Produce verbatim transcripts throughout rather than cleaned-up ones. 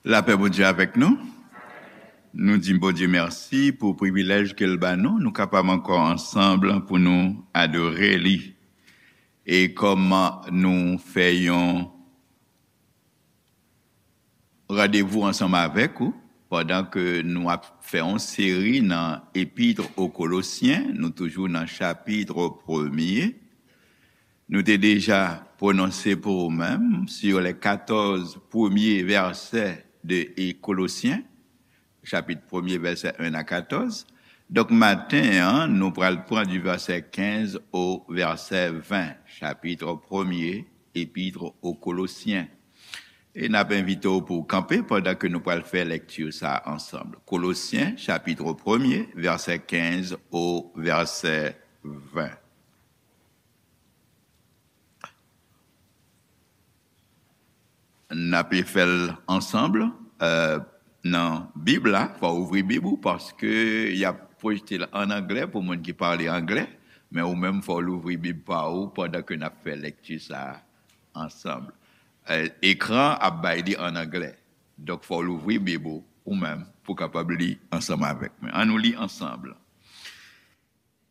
Lapè Bondye avèk nou. Nou di Bondye mèsi pou privilèj ke l ba nou, nou kapab ankò ansanm pou nou adore li. E kòm nou fè yon randevou ansanm avèk ou, pandan ke nou ap fè yon seri nan Epître aux Colossiens, nou toujou nan chapit premye. Nou te deja pwononse pou ou menm sur les quatorze premiers versets de Colossiens, chapit premye, vèsè en a katòz. Donk, maten an, nou pral pran du verset quinze au verset vingt, chapit premye, Epître aux Colossiens. E n ap envite w pou w kanpe pandan ke nou pral fè lèkti sa ansanm. Kolosyen, chapit premye, vèsè quinze au verset vingt. N ape fè l ansanm, eh, nan Bib la. Fò w ouvri Bib ou, paske y ap pwojte l ann anglè pou moun ki pale anglè, men ou menm fò w louvri Bib pa ou pandan ke n ap fè lèkti sa a ansanm. Eh, ekran ap bay li ann anglè. Donk, fò w louvri Bib ou, ou menm, pou w kapab li ansanm avèk mwen. Ann nou li ansanm.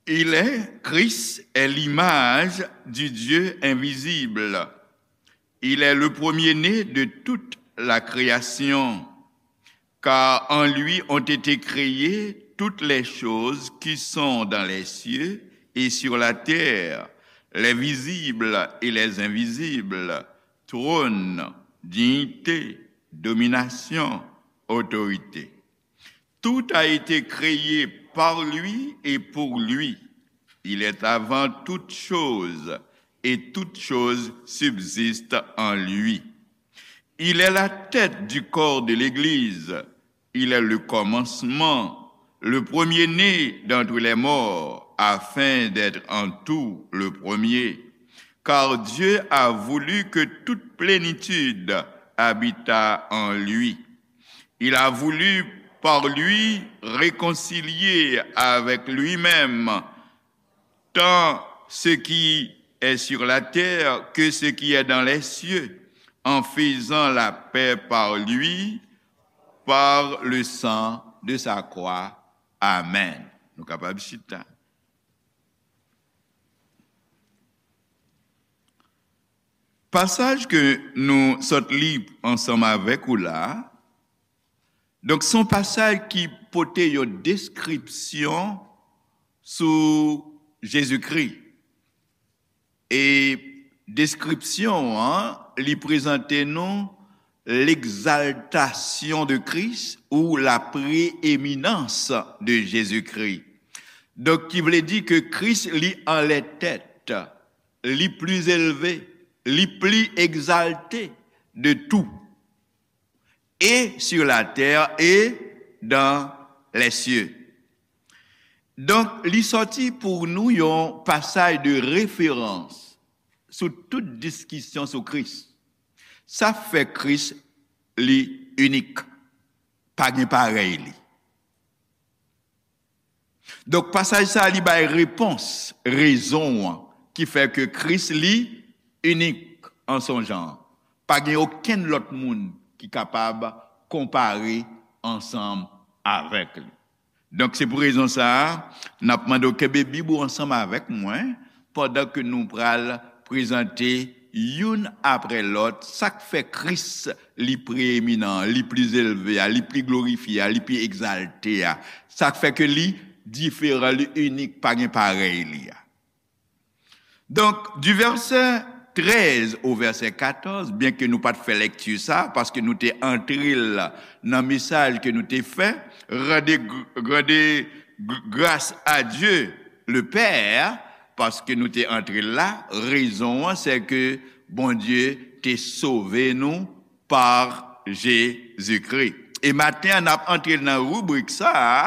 Il est, Christ est l'image du Dieu invisible. Il est le premier-né de toute la création, car en lui ont été créées toutes les choses qui sont dans les cieux et sur la terre, les visibles et les invisibles, trône, dignité, domination, autorité. Tout a été créé par lui et pour lui. Il est avant toutes choses et toutes choses subsistent en lui. Il est la tête du corps de l'Église. Il est le commencement, le premier-né d'entre les morts, afin d'être en tout le premier. Car Dieu a voulu que toute plénitude habitât en lui. Il a voulu par lui réconcilier avec lui-même tant ce qui est sur la terre que ce qui est dans les cieux, en faisant la paix par lui, par le sang de sa croix. Amen. Nou kapab chita. Pasaj ke nou sot li ansanm avèk ou la, donk, se yon pasaj ki pote yon deskripsyon sou Jezikri. E deskripsyon an, li prezante nou l'exaltation de Christ ou la prééminence de Jésus-Christ. Donk, ki vle di ke Kris, li anlè tèt, li pli elve, li pli egzalte de tout, et sur la terre et dans les cieux. Donk, li sòti pou nou yon pasaj de referans sou tout diskisyon sou Kris. Sa k fè Kris li inik. Pa gen parèy li. Donk, pasaj sa a, li bay repons, rezon an, ki fè ke Kris, li inik an son jan. Pa gen okenn lòt moun ki kapab konpare ansanm avèk li. Donk, se pou rezon sa a, n ap mande w kenbe Bib ou ansanm avèk mwen, pandan ke nou pral prezante youn apre lòt, sa k fè Kris li preeminan, li pli elve a, li pli glorifye a, li pli egzalte a, sa k fè ke li diferan, li inik, pa gen parèy li a. Donk, di vèsè trèz o vèsè katòz, byenke nou pa t fè lèkti sa, paske nou te antre l nan mesaj ke nou te fè, rande, rande gr-, gras a Dye le Pè, paske nou te antre l la, rezon an, se ke Bondye te sove nou pa Jezikri. E maten an, n ap antre nan ribrik sa a,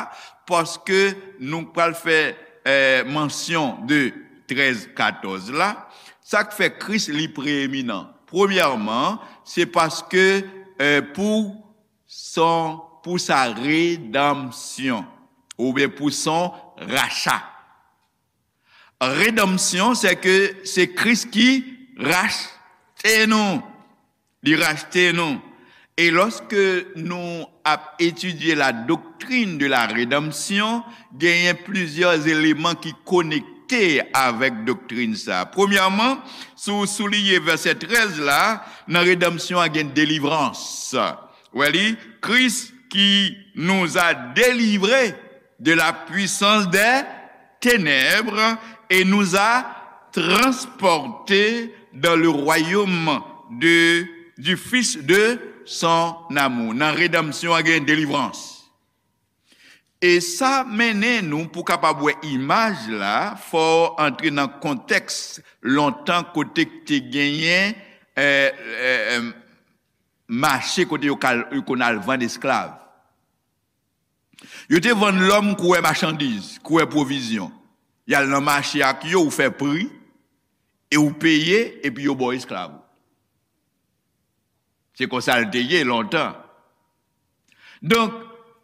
paske nou pral fè, eh, mansyon de trèz katòz la. Sa k fè Kris li preeminan? Premyèman, se paske, eh, pou son, pou sa redanmsyon, oubyen pou son racha. Redanmsyon, se ke se Kris ki rachte nou. Li rachte nou. E lòske nou ap etidye la doctrine de la rédemption, genyen plizyè eleman ki konekte avèk doktrin sa a. Premyèman, si w souliye vèsè trèz la, nan redanmsyon an gen delivrans. Wè li, Christ qui nous a délivrés de la puissance des ténèbres et nous a transportés dans le royaume de, du Fils de son amour. Nan redanmsyon an gen delivrans. E sa mennen nou pou kapab wè imaj la, fò w antre nan kontèks lontan kote k te genyen, eh, eh, eh, mache kote yo kal-, yo konn al vann esklav. Yo te vann lòm kouwè machandiz, kouwè pwovizyon. Y al nan mache ak yo, ou fè pri, e ou peye, epi yo ba w esklav ou. Se konsa l te ye lontan. Donk,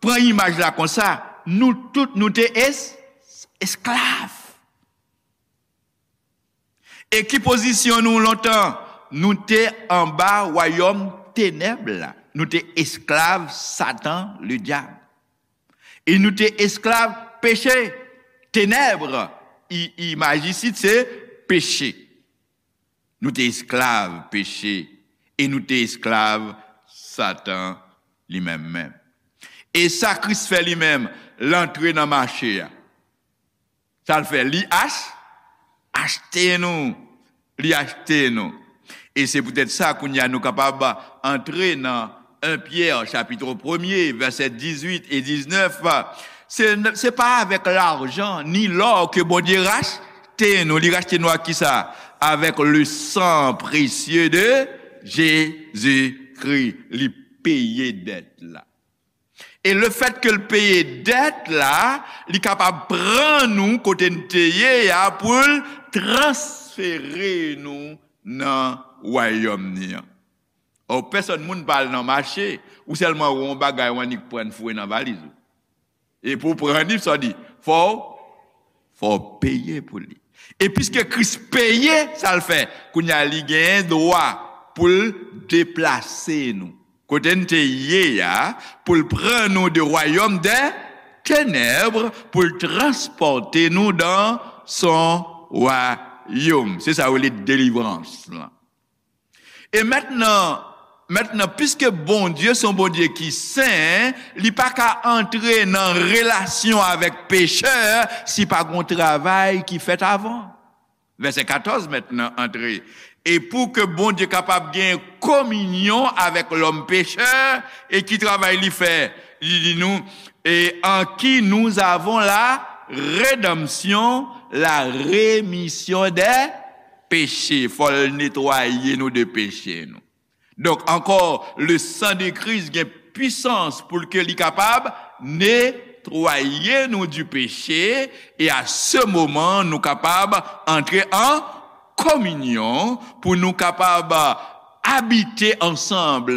pran imaj la konsa, nou tout, nou te es-, esklav. E ki pozisyon nou lontan? Nou te anba wayòm tenèb la. Nou te esklav Satan, ledyab. E nou te esklav peche, tenèb. I-, imaj isit se peche. Nou te esklav peche e nou te esklav Satan li menm menm. E sa Kris fè li menm, l antre nan mache a. Sa l fè? Li ach-, achte nou. Li achte nou. E se poutèt sa, kounye a, nou kapab antre nan en Pyè, chapit premye, vèsè dizuit e diznèf. Se, se pa avèk lajan ni lò ke Bondye rachte nou. Li rachte nou ak kisa? Avec le sang précieux de Jésus-Christ. Li peye dèt la. E lefèt ke l peye dèt la, li kapab pran nou kote n te ye a pou l transfere nou nan wayòm ni an. Ò, pèsòn moun pa al nan mache, ou sèlman wè yon bagay ou annik pran foure nan valiz ou. E pou w pran li, sa w di, fò w, fò w peye pou li. E piske Kris peye, sa l fè? Kounye a, li genyen dwa pou l deplase nou. Kote n te ye a, pou l pran nou de royaume des ténèbres, pou l transpòte nou dans son royaume. Se sa yo rele delivrans lan. E mentnan, mentnan, piske Bondye se yon Bondye ki sen, li pa ka antre nan relasyon avèk pechè si pa gon travay ki fèt avan. Vèsè katòz mentnan antre. E pou ke Bondye kapab gen kominyon avèk lòm pechè, e ki travay li fè? Li di nou, et en qui nous avons la rédemption, la rémission des péchés. Fò l netwaye nou de peche nou. Donk, ankò, le sang de Christ gen pwisans pou l ke li kapab netwaye nou du péché, e a se moman, nou kapab antre an kominyon pou nou kapab abite ansanm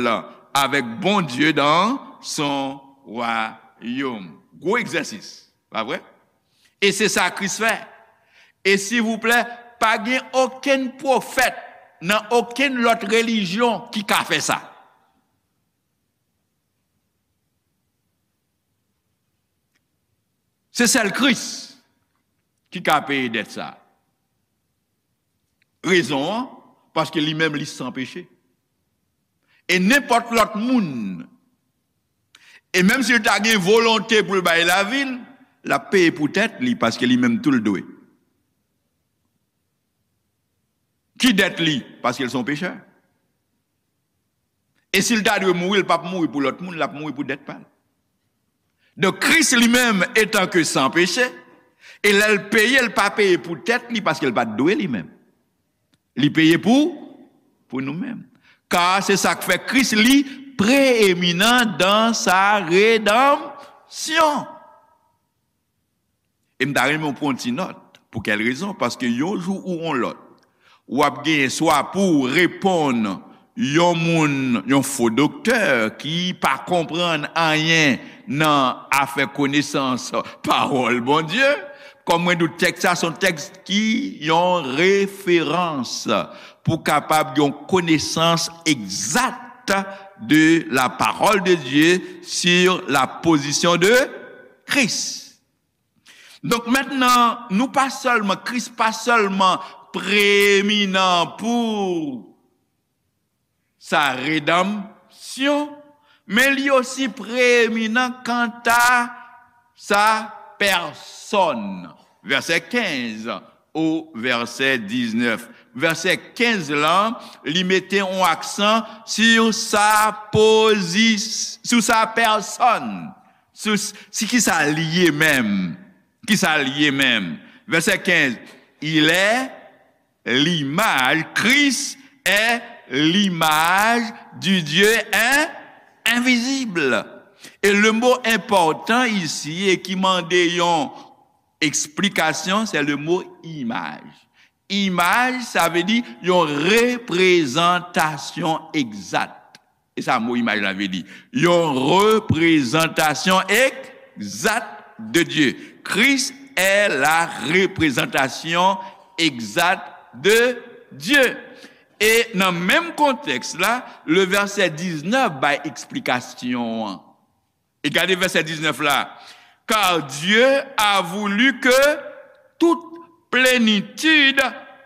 avèk Bondye dans son royaume. Gwo egzèsis, pa vre? E se sa Kris fè. E silvouplè, pa gen okenn pwofèt nan okenn lòt relijyon ki ka fè sa. Se sèl Kris ki ka peye dèt sa. Rezon an, paske li menm li san peche. E nenpòt lòt moun, e menm si l ta gen volonte pou l bay lavi l, l ap peye pou tèt li, paske li menm tou l dwe. Ki dèt li? Paske l se yon pechè. E si l ta dwe mouri, l p ap mouri pou lòt moun, l ap mouri pou dèt pa l. Donk, Kris li menm, etan ke san peche, e lè l peye, l pa peye pou tèt li, paske l pa t dwe li menm. Li peye pou, pou nou menm. Kar se sa k fè Kris li preeminan dans sa redanmsyon. E m ta renmen w pran yon ti nòt. Pou kèl rezon? Paske yon jou ou yon lòt, w ap genyen swa pou w reponn yon moun, yon fo doktè ki pa konprann anyen nan afè konesans pawòl Bondye. Kòm mwen di w, tèks sa se yon tèks ki yon referans pou kapab gen yon konesans egzat de la parole de Dieu sur la position de Christ. Donk mentnan, nou pa sèlman, Kris pa sèlman preeminan pou sa redanmsyon, men li osi preeminan kanta sa pèsòn. Vèsè kenz o vèsè diznèf. Vèsè kenz lan, li mete yon aksan sou sa pozis-, sou sa pèsòn, sou s-, si ki sa li ye menm, ki sa li ye menm. Vèsè kenz, il est l'image, Christ est l'image du Dieu in-, invisible. E le mo enpòtan isi e ki mande yon eksplikasyon, se le mo imaj. Imaj, sa vle di yon reprezantasyon egzat. E sa mo imaj la vle di. Yon reprezantasyon egzat de Dieu. Christ est la représentation exacte de Dieu. E nan menm kontèks la, le vèsè diznèf bay eksplikasyon an. E gade vèsè diznèf la. Car Dieu a voulu que toute plénitude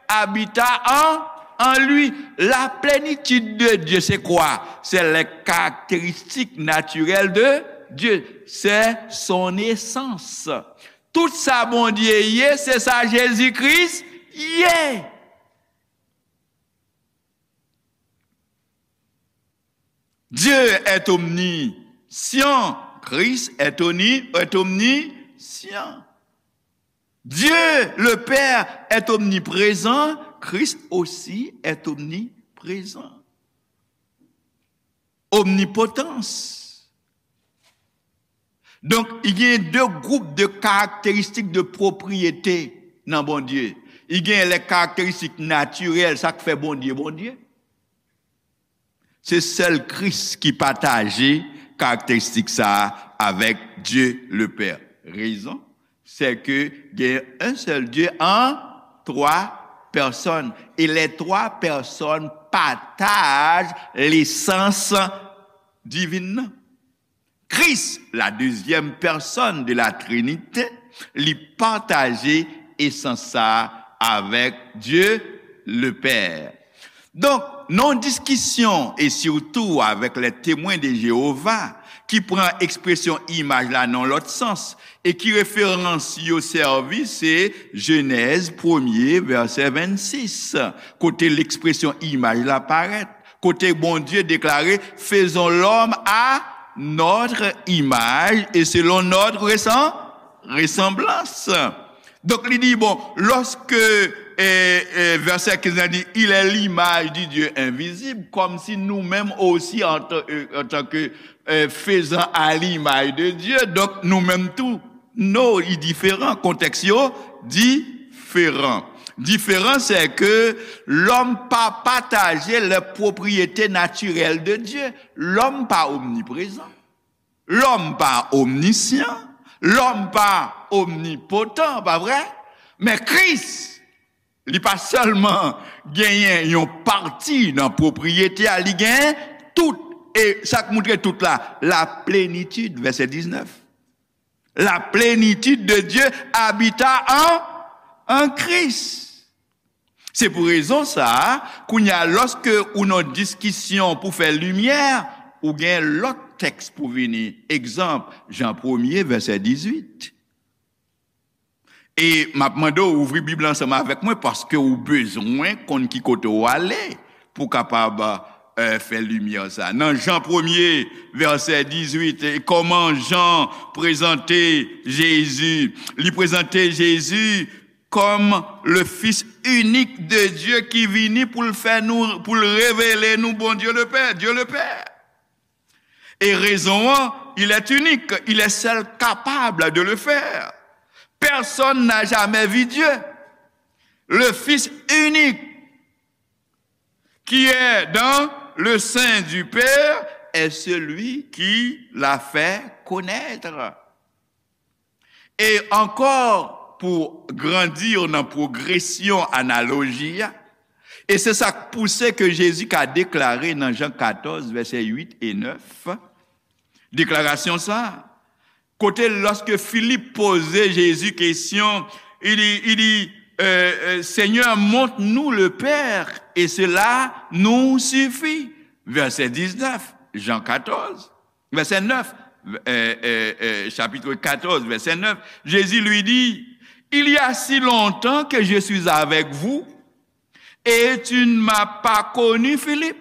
habitât en, en lui. La plénitude de Dieu, c'est quoi? C'est les caractéristiques naturelles de Dieu. C'est son essence. Tout sa Bondye ye, se sa Jezi Kris ye. Dieu est omniscient, Christ est omni-, est omniscient. Dieu le Père est omniprésent, Christ aussi est omniprésent. Omnipotans. Donk, i gen de gwoup de karakteristik de pwopriyete nan Bondye. I gen lè karakteristik natirèl, sa k fè Bondye, Bondye. Se sèl Kris ki pataje karakteristik sa a avèk Dieu le Père. Rezon, c'est que gen un seul Dieu en trois personnes. Et les trois personnes partagent l'essence divine. Kris, la deuxième personne de la Trinité, li pataje esans sa a avèk Dieu le Père. Donk, nan yon diskisyon, e sitou avèk les Témoins de Jéhovah, ki pran ekspresyon imaj la nan lòt sans, e ki referans yo sèvi, se Jenèz premye, vèsè vennsis, kote ekspresyon imaj la parèt, kote Bondye deklare, faisons l'homme à notre image et selon notre ressemblance. Donk, li di, bon, lòske, e, e, vèsè kenz la di, il est l'image du Dieu invisible, kòmsi nou menm osi, an tan, e, an tan ke, e, faisant à l'image de Dieu, donk, nou menm tou, no, li diferan, kontèks yo diferan. Diferan, c'est que l'homme pa pataje les propriétés naturelles de Dieu. Lòm pa omniprezan. Lòm pa omnisyan, lòm pa omnipotan, pa vre? Men Kris, li pa sèlman genyen yon pati nan pwopriyete a, li genyen tout, e sa k moutre tout la, la plenitid, vèsè diznèf. La plénitude de Dieu habita en, en Christ. Se pou rezon sa a, kounye a, lòske ou nan diskisyon pou fè limyè, ou gen lòt tèks pou vini. Egzanp, Jan premye, vèsè dizuit. E m ap mande w ouvri Bib la ansanm avèk mwen, paske ou bezwen konn ki kote w ale pou w kapab, e, fè limyè sa. Nan Jan premye, vèsè dizuit, e kòman Jan prezante Jezi? Li prezante Jezi kòm le Fils unique de Dieu ki vini pou l fè nou, pou l revele nou Bondye le Pè, Dieu le Père. Et raison, il est unique, il est seul capable de le faire. Personne n'a jamais vu Dieu. Le Fils unique qui est dans le sein du Père est celui qui l'a fait connaître. E ankò, pou grandi nan pwogresyon analoji a, E se sa k pouse ke Jezi ka deklare nan Jan katòz, vèsè uit e nèf, deklarasyon sa a, kote lòske Filip poze Jezi kesyon, il dit, il dit, euh, euh, Seigneur, montre-nous le Père, et cela nous suffit. Vèsè diznèf, Jan katòz, vèsè nèf, euh, euh, euh, chapitre quatorze, verset neuf, Jésus lui dit, Il y a si longtemps que je suis avec vous, et tu ne m'as pas connu, Philippe.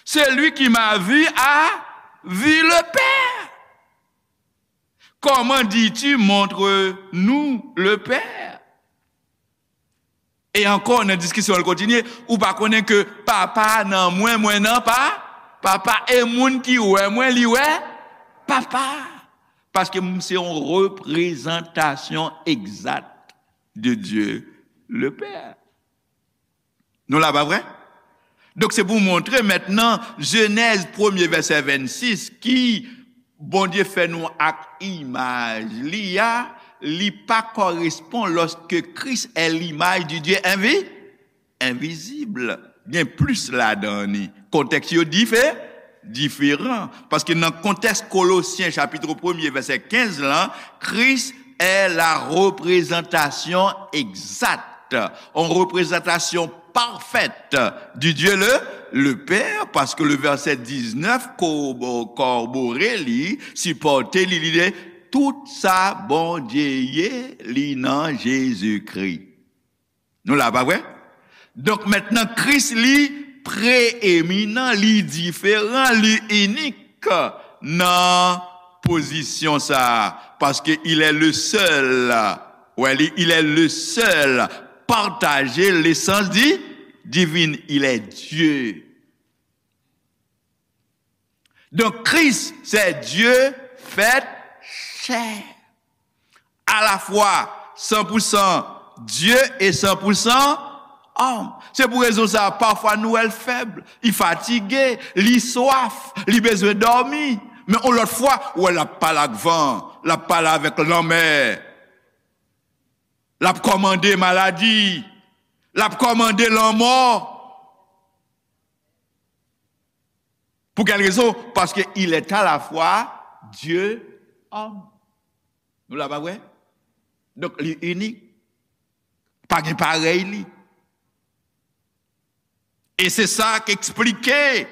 Celui qui m'a vu a vu le Père. Comment dis-tu, montre-nous le Père? E ankò, nan diskisyon an, l kontinye, ou pa konnen ke Papa nan mwen, mwen nan pa, Papa, e moun ki wè mwen, li wè Papa. Paske m se yon reprezantasyon egzat de Dieu le Père. Nou la, pa vre? Donk, se pou montre mentnan, Jenèz premye vèsè vennsis, ki Bondye fè nou ak imaj li a, li pa kòrespon lòske Kris è limaj di Dye envi, envizib. Gen plis ladan li. Kontèks yo dife, diferan. Paske nan kontèks Kolosyen chapit premye vèsè kenz lan, Kris è la reprezantasyon egzat, yon reprezantasyon pafèt di Dye le, le Pè, paske le vèsè diznèf ko-, kòbore li, sipòte li, li di tout sa Bondye ye, li nan Jezikri. Nou la, pa vre? Donk, mentnan, Kris, li preyeminan, li diferan, li inik nan pozisyon sa a, paske il est le seul, wè, li, il est le seul partager l'essence di-, divine, il est Dieu. Donk, Kris, se Dye fèt chè. Alafwa san pou san Dye e san pou san òm. Se pou rezon sa a, pafwa nou wè l fèb, li fatige, li swaf, li bezwen dòmi. Men yon lòt fwa, ou wè l ap pale ak van, l ap pale avèk lanmè, l ap kòmande maladi, l ap kòmande lanmò. Pou kèl rezon? Paske il est à la fois Dieu, homme. Nou la, pa vre? Donk, li inik. Pa gen parèy li. E se sa k eksplike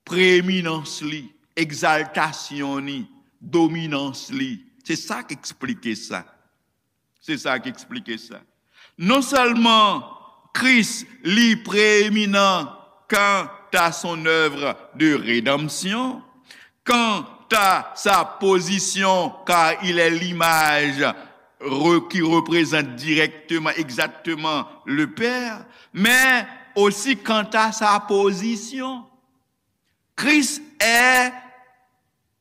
preeminans li, egzaltasyon li, dominans li. Se sa k eksplike sa. Se sa k eksplike sa. Non sèlman Kris, li preeminan kanta son œuvre de rédemption, kanta sa pozisyon, car il est l'image re-, qui représente directement, exactement le Père, men osi kanta sa pozisyon. Kris è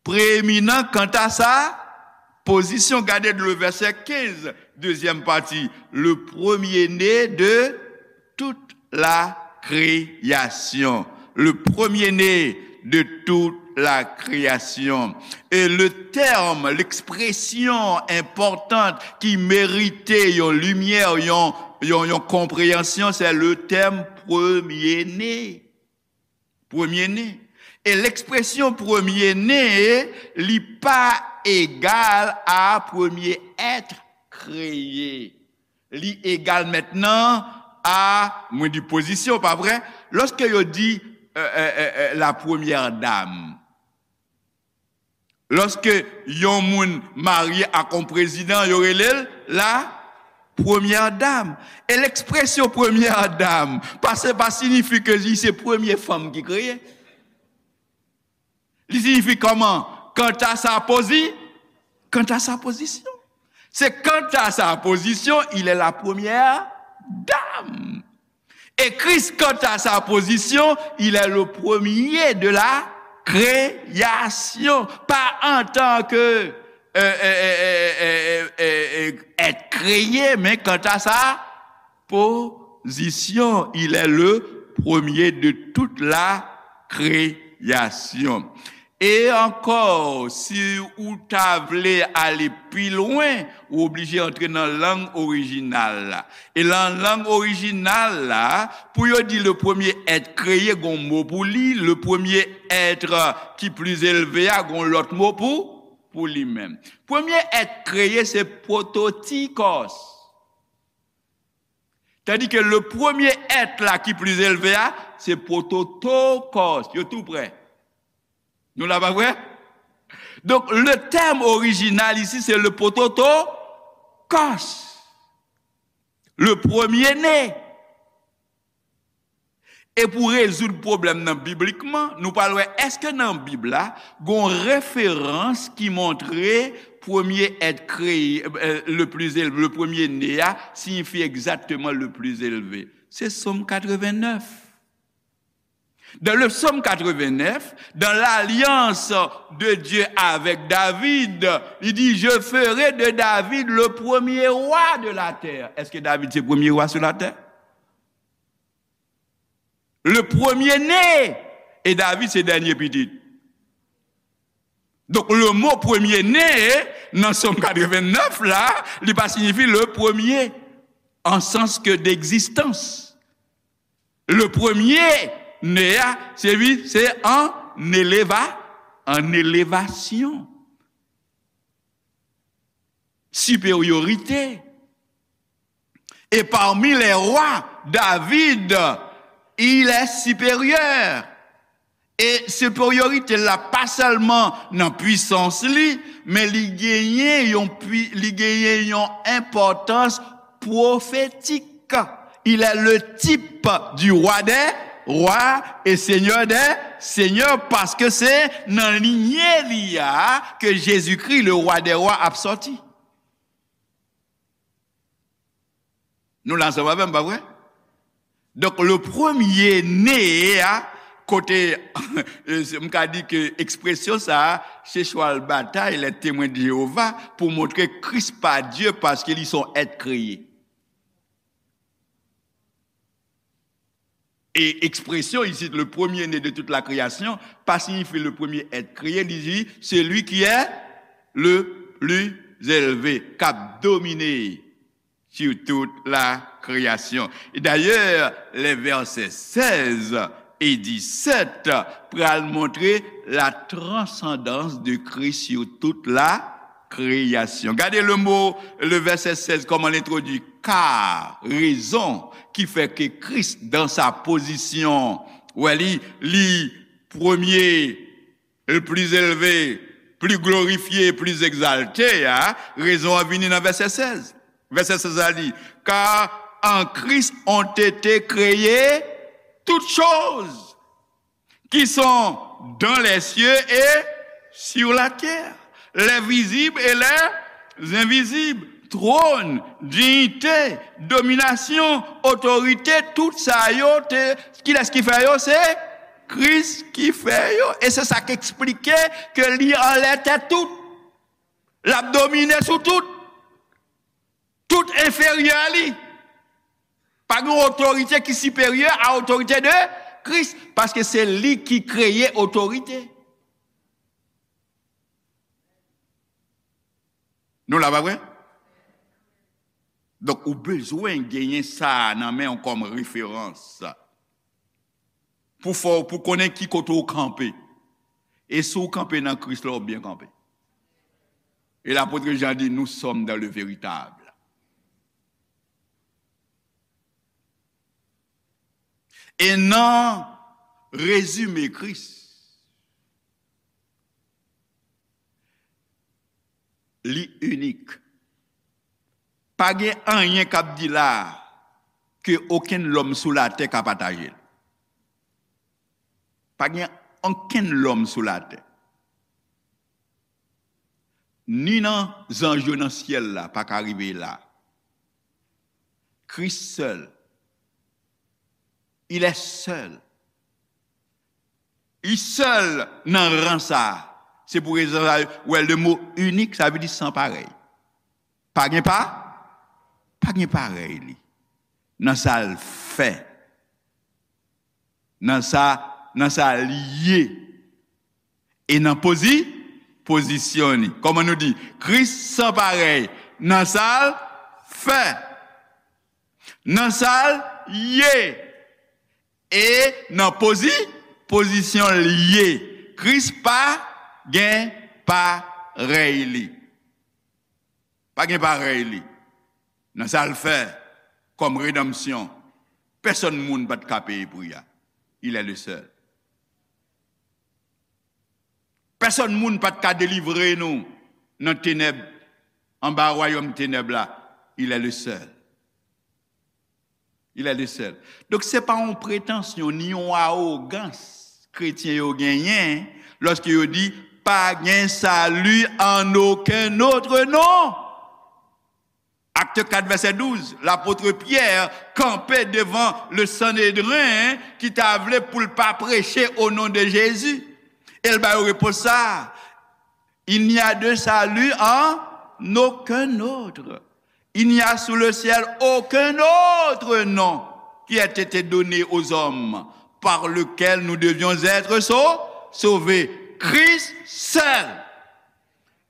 preeminan kanta sa pozisyon. Gade le vèsè kenz, dezyèm pati, le premier-né de toute la création. Le premier-né de toute la création. E le tèm, lekspresyon enpòtan ki merite yon limyè, yon, yon, yon konpreyansyon, se le tèm premye ne. Premye ne. E lekspresyon premye ne, li pa egal a premye èt kreye. Li egal mentnan a, mwen di pozisyon, pa vre? Lòske yo di, euh, euh, euh, euh, la première dame, lòske yon moun marye ak yon prezidan, yo rele l la premyè dam. E lekspresyon premyè dam, pa se, pa siyifi ke li se premye fanm ki kreye. Li siyifi kòman? Kanta sa pozi-, kanta sa pozisyon. Se kanta sa pozisyon, il est la première dame. E Kris, kanta sa pozisyon, il est le premier de la création. Pa antanke, euh, euh, euh, euh, euh, euh, euh, èt kreye, men kanta sa pozisyon, il est le premier de toute la création. E ankò, si ou ta vle ale pi lwen, ou oblije antre nan lang orijinal la. E nan lang orijinal la, pou yo di le premier être créé, gon mo pou li, le premier être qui plus élevé a, gon lòt mo pou, pou li menm. Premye èt kreye se pwototikòs. Tandis que le premier être là qui plus élevé a, se pwototokòs. Yo tou prè. Nou la pa vre? Donc, le terme original ici, c'est le pwototokòs. Le premier-né. E pou rezoud pwoblèm nan biblikman, nou pral wè èske nan Bib la, gon referans ki montre premye èt kreye, euh, le plus élevé, le premier-né a, siyifi egzakteman le plus élevé. Se Sòm katrevennèf. Dans le Psaume quatre-vingt-neuf, dans l'alliance de Dieu avec David, il dit, je ferai de David le premier roi de la terre. Est-ce que David c'est premier roi sur la terre? Le premier-né. E David se dènye pitit. Donk, le mo premye ne nan Sòm katrevennèf la, li pa siyifi le premier, en sens que d'existence. Le premier né a, se li, se an eleva, an elevasyon. Siperyorite. Et parmi les rois, David, il est supérieur. E siperyorite la pa sèlman nan pwisans li, men li genyen yon pwi-, li genyen yon enpòtans pwofetik. Il est le type du roi des rois et seigneur des seigneurs, paske se nan linye li a ke Jezikri, le roi des rois, ap sòti. Nou la ansanm avè m, pa vre? Donk, le premier né a, kote, m ka di ke ekspresyon sa a, se chwal batay les Témoins de Jéhovah pou montre Kris pa Dye paske li se yon èt kreye. E ekspresyon isit, le premier-né de toute la création, pa siyifi le premier être créé, li di celui qui est le plus élevé, k ap domine sur toute la création. E dayè, les versets seize et dix-sept pral montre la transcendance de Christ sur toute la création. Gade le mo, le verset seize, kòman l entwodui. Car, raison qui fait que Christ, dans sa position, wè li, li premye, le plus élevé, plus glorifié, plus exalté, a, rezon an vini nan vèsè sèz. Vèsè sèz la di, car en Christ ont été créées toutes choses qui sont dans les cieux et sur la terre, les visibles et les invisibles, trône, dignité, domination, autorité, tout sa yo te, kilès ki fè yo? Se Kris ki fè yo. E se sa k eksplike ke li anlè tèt tout. L ap domine sou tout. Tout enferyè li. Pa gen otorite ki siperyè a otorite de Kris, paske se li ki kreye otorite. Nou la, pa vre? Donk, ou bezwen genyen sa a nan men w kòm referans. Pou fè w, pou konnen ki kote w kanpe. E si w kanpe nan Kris la, w byen kanpe. E lapot Jan di, nous sommes dans le véritable. E nan rezime Kris, li inik. Pa gen anyen k ap di la a ke okenn lòm sou latè ka pataje l. Pa gen okenn lòm sou latè, ni nan zanj yo nan syèl la, pa ka rive la. Kris sèl. Il est seul. Li sèl nan ran sa a. Se pou rezon sa a, wè, le mo inik, sa vle di san parèy. Pa gen pa, pa gen parèy li. Nan sa l fè. Nan sa, nan sa l ye. E nan pozi, pozisyon li. Kòman nou di? Kris san parèy nan sa l fè, nan sa l ye, e nan pozi, pozisyon l ye. Kris pa gen parèy li. Pa gen parèy li. Nan sa l fè kòm redanmsyon, pèsonn moun pa t ka peye pri a. Il est le seul. Pèsonn moun pa t ka delivre nou nan tenèb, anba wayòm tenèb la. Il est le seul. Il est le seul. Donk, se pa yon pretansyon ni yon awogans kretyen yo genyen lòske yo di, pa gen sali an okenn òt non. Acte quatre, verset douze, lapot Pyè kanpe devan le Sanedren ki ta vle pou l pa preche o non de Jezi. E l ba yo repons sa a, il n'y a de salut en aucun autre. Il n'y a sous le ciel aucun autre nom qui ait été donné aux hommes par lequel nous devions être sau- sauvés. Christ seul.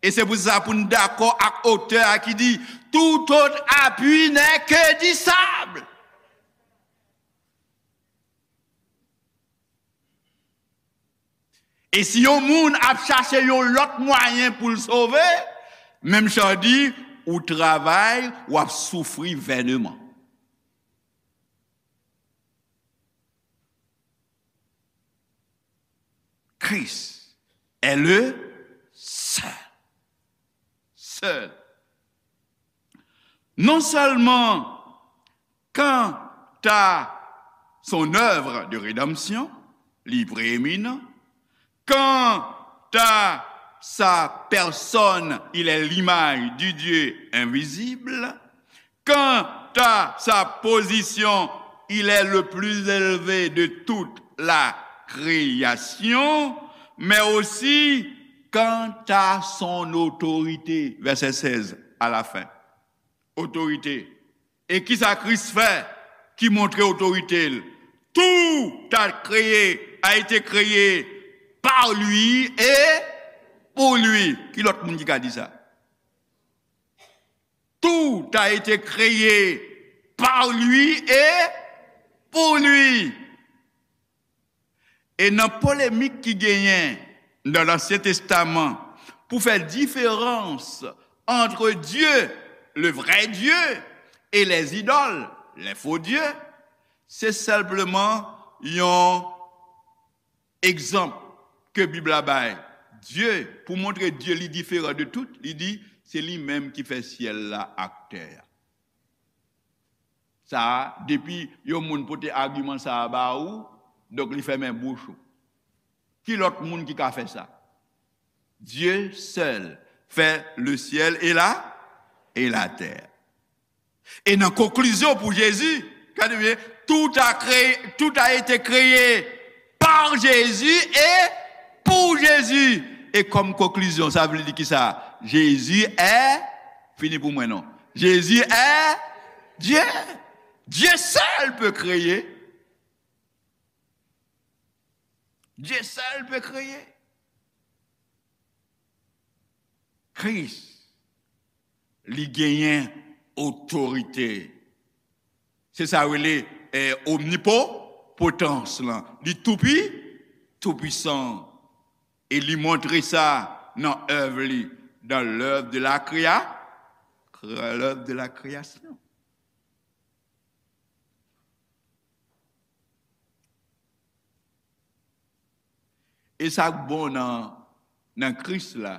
E se pou sa pou n dakò ak otè a ki di, tout autre appui n'est que du sable. E si yon moun ap chache yon lòt mwayen pou l sove, menm jan di, ou travay, w ap soufri vènman. Christ est le seul. Seul. Non seulement quant à son œuvre de rédemption, li prééminent, quant à sa personne, il est l'image du Dieu invisible, quant à sa position, il est le plus élevé de toute la création, mais aussi quant à son autorité, verset seize à la fin. Otorite. E kisa Kris fè ki montre otorite l? Tout a créé, a été créé par lui et pour lui. Ki lòt moun ki ka di sa? Tout a été créé par lui et pour lui. E nan polemik ki genyen nan Lansyen Testaman pou fè diferans entre Dieu, le vrai Dieu, et les idoles, les faux dieux, se senpleman yon egzanp ke Bib la bay. Dye, pou montre Dye li diferan de tout, li di, se li menm ki fè syèl la ak tè a. Sa a, depi yon moun pote agiman sa a ba ou, donk li fèmen bouch ou. Ki lòt moun ki ka fè sa? Dieu seul fait le ciel et la, et la terre. E nan konklizyon pou Jezi, gade byen, tout a créé, tout a été créé par Jésus et pour Jésus. E kòm konklizyon, sa vle di ki sa? Jésus est, fini pou mwen non. Jésus est Dieu. Dieu seul peut créer. Dieu seul peut créer. Kris, li genyen otorite. Se sa yo rele, eh, omnipotans lan. Li toupi, toupwisan. E li montre sa nan èv li, dans l'œuvre de la créa-, l'œuvre de la création. E sa k bon nan, nan Kris la,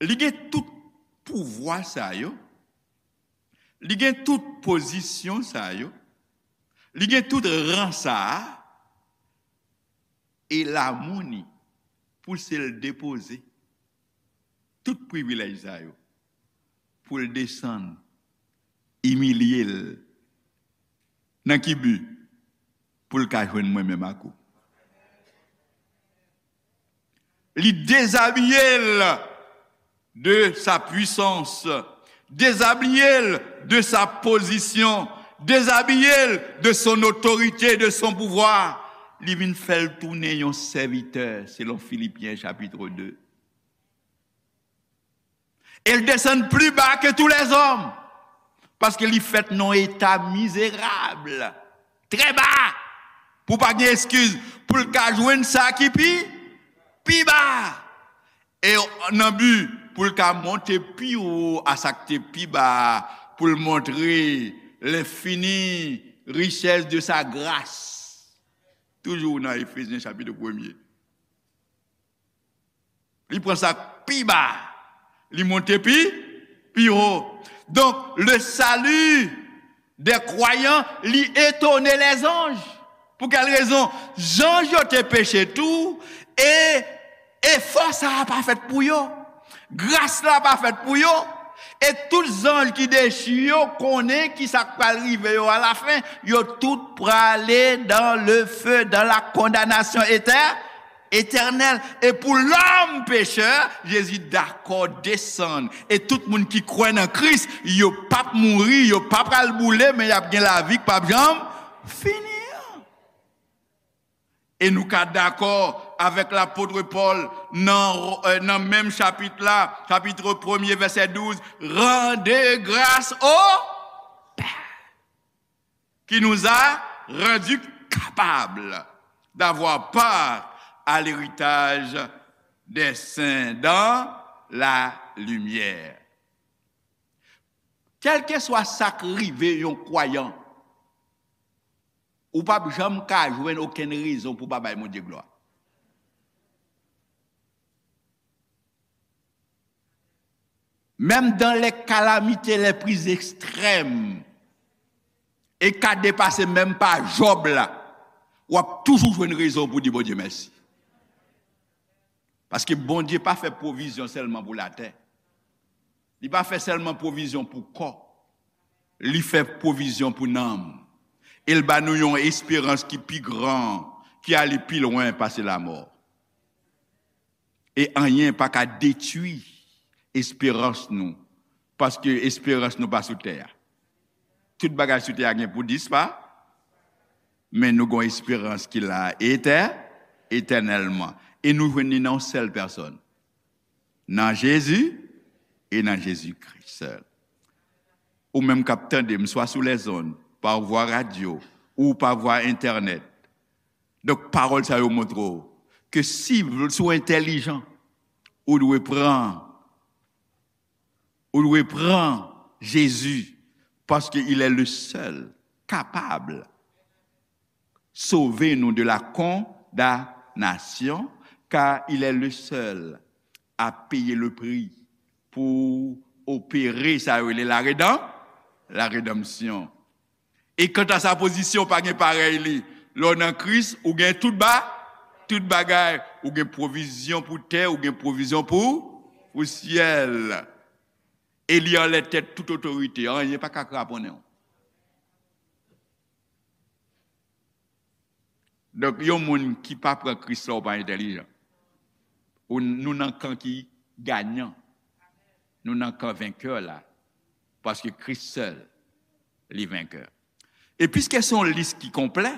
li gen tout pouvwa sa yo, li gen tout pozisyon sa yo, li gen tout ran sa a, e l a moun li pou se l depoze tout privilèj sa yo, pou l desann, imilye l. Nan ki bi? Pou l ka jwenn mwen menm ak ou. Li dezabiye l de sa puissance, dezabiye l de sa position, dezabiye l de son autorité, de son pouvoir, Li vin fè l tounen yon sèvitè, selon Filipyen chapit de. E l desann pli ba ke tou lèzòm, paske li fèt nan yon eta mizerab, trè ba, pou pa gen eskiz, pou l ka jwenn sa ki pi, pi ba. E nan bi pou l ka monte pi wo a sa k te pi ba, pou l montre lenfini richès de sa gras. Toujou nan Efezyen chapit premye. Li pran sa k pi ba, li monte pi, pi wo. Donk, le salut des croyants, li etone lèzanj. Pou kèl rezon? Zanj yo te peche tou, e efò sa a pa fèt pou yo. Gras la pa fèt pou yo. E tout zanj ki dechi yo konnen ki sa k pral rive yo alafen. Yo tout prale dans le feu, dans la condamnation éternelle. Etènèl. E pou lòm pechè, Jezi dakò desann. E tout moun ki kwè nan Kris, yo p ap mouri, yo pa pral boule, men y ap gen lavi k p ap janm fini an. E nou ka dakò avèk lapot Pòl nan, eh, nan menm chapit la, chapit premye, vèsè douz, rendez grâce au Père qui nous a rendus capables d'avoir part à l'héritage des saints dans la lumière. Kèlkeswa sa k rive yon kwayan, ou p ap janm ka jwenn okenn rezon pou pa bay Bondye glwa. Menm dans les calamités les plus extrêmes, e ka depase menm pa Jòb la, w ap toujou jwenn rezon pou di Bondye mèsi. Paske Bondye pa fè pwovizyon sèlman pou latè. Li pa fè sèlman pwovizyon pou kò. Li fè pwovizyon pou nanm. E l ba nou yon esperans ki pi gran, ki ale pi lwen pase lamò. E anyen pa ka detwi esperans nou, paske esperans nou pa sou tè a. Tout bagay sou tè a gen pou dispa, men nou gon esperans ki la etè, etènèlman. E nou jwenn li nan yon sèl pèsòn, nan Jezi e nan Jezi Kris sèl. Ou menm k ap tande m, swa sou lèzonn, pa vwa radyo, ou pa vwa entènèt. Donk, pawòl sa yo montre w ke si, si w entèlijan, ou dwe pran, ou dwe pran Jezi, paske il est le seul capable sauver nous de la condamnation, car il est le seul à payer le prix pou opere sa yo rele la redan-, la redanmsyon. E kanta sa pozisyon, pa gen parèy li. Lè w nan Kris, ou gen tout ba-, tout bagay. Ou gen pwovizyon pou tè, ou gen pwovizyon pou, pou syèl. E li anlè tèt tout otorite. Anyen pa ka kraponnen w. Donk, yon moun ki pa pran Kris la, ou pa entèlijan. Ou, nou nan kan ki ganyan. Nou nan kan venkè la. Paske Kris sèl, li venkè. E piske se yon lis ki konplè,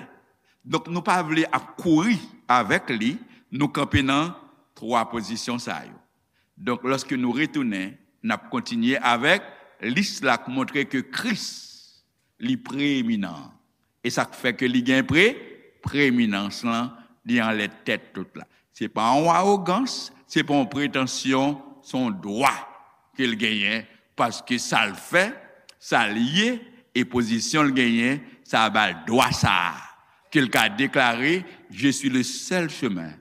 donk nou pa vle ap kouri avèk li, nou kanpe nan twa pozisyon sa yo. Donk, lòske nou retounen, n ap kontinye avèk lis la k montre ke Kris, li preyeminan. E sa k fè ke li gen pre-, preyeminans lan, li anlè tèt tout la. Se pa yon awogans, se pa yon pretansyon, se yon dwa ke l genyen, paske sa l fè, sa l ye, e pozisyon l genyen, sa ba l dwa sa a, ke l ka deklare, je suis le seul chemin,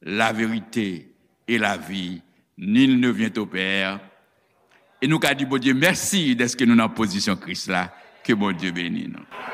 la vérité et la vie, nul ne vient au Père. E nou ka di Bondye mèsi dèske nou nan pozisyon Kris la. Ke Bondye beni nou.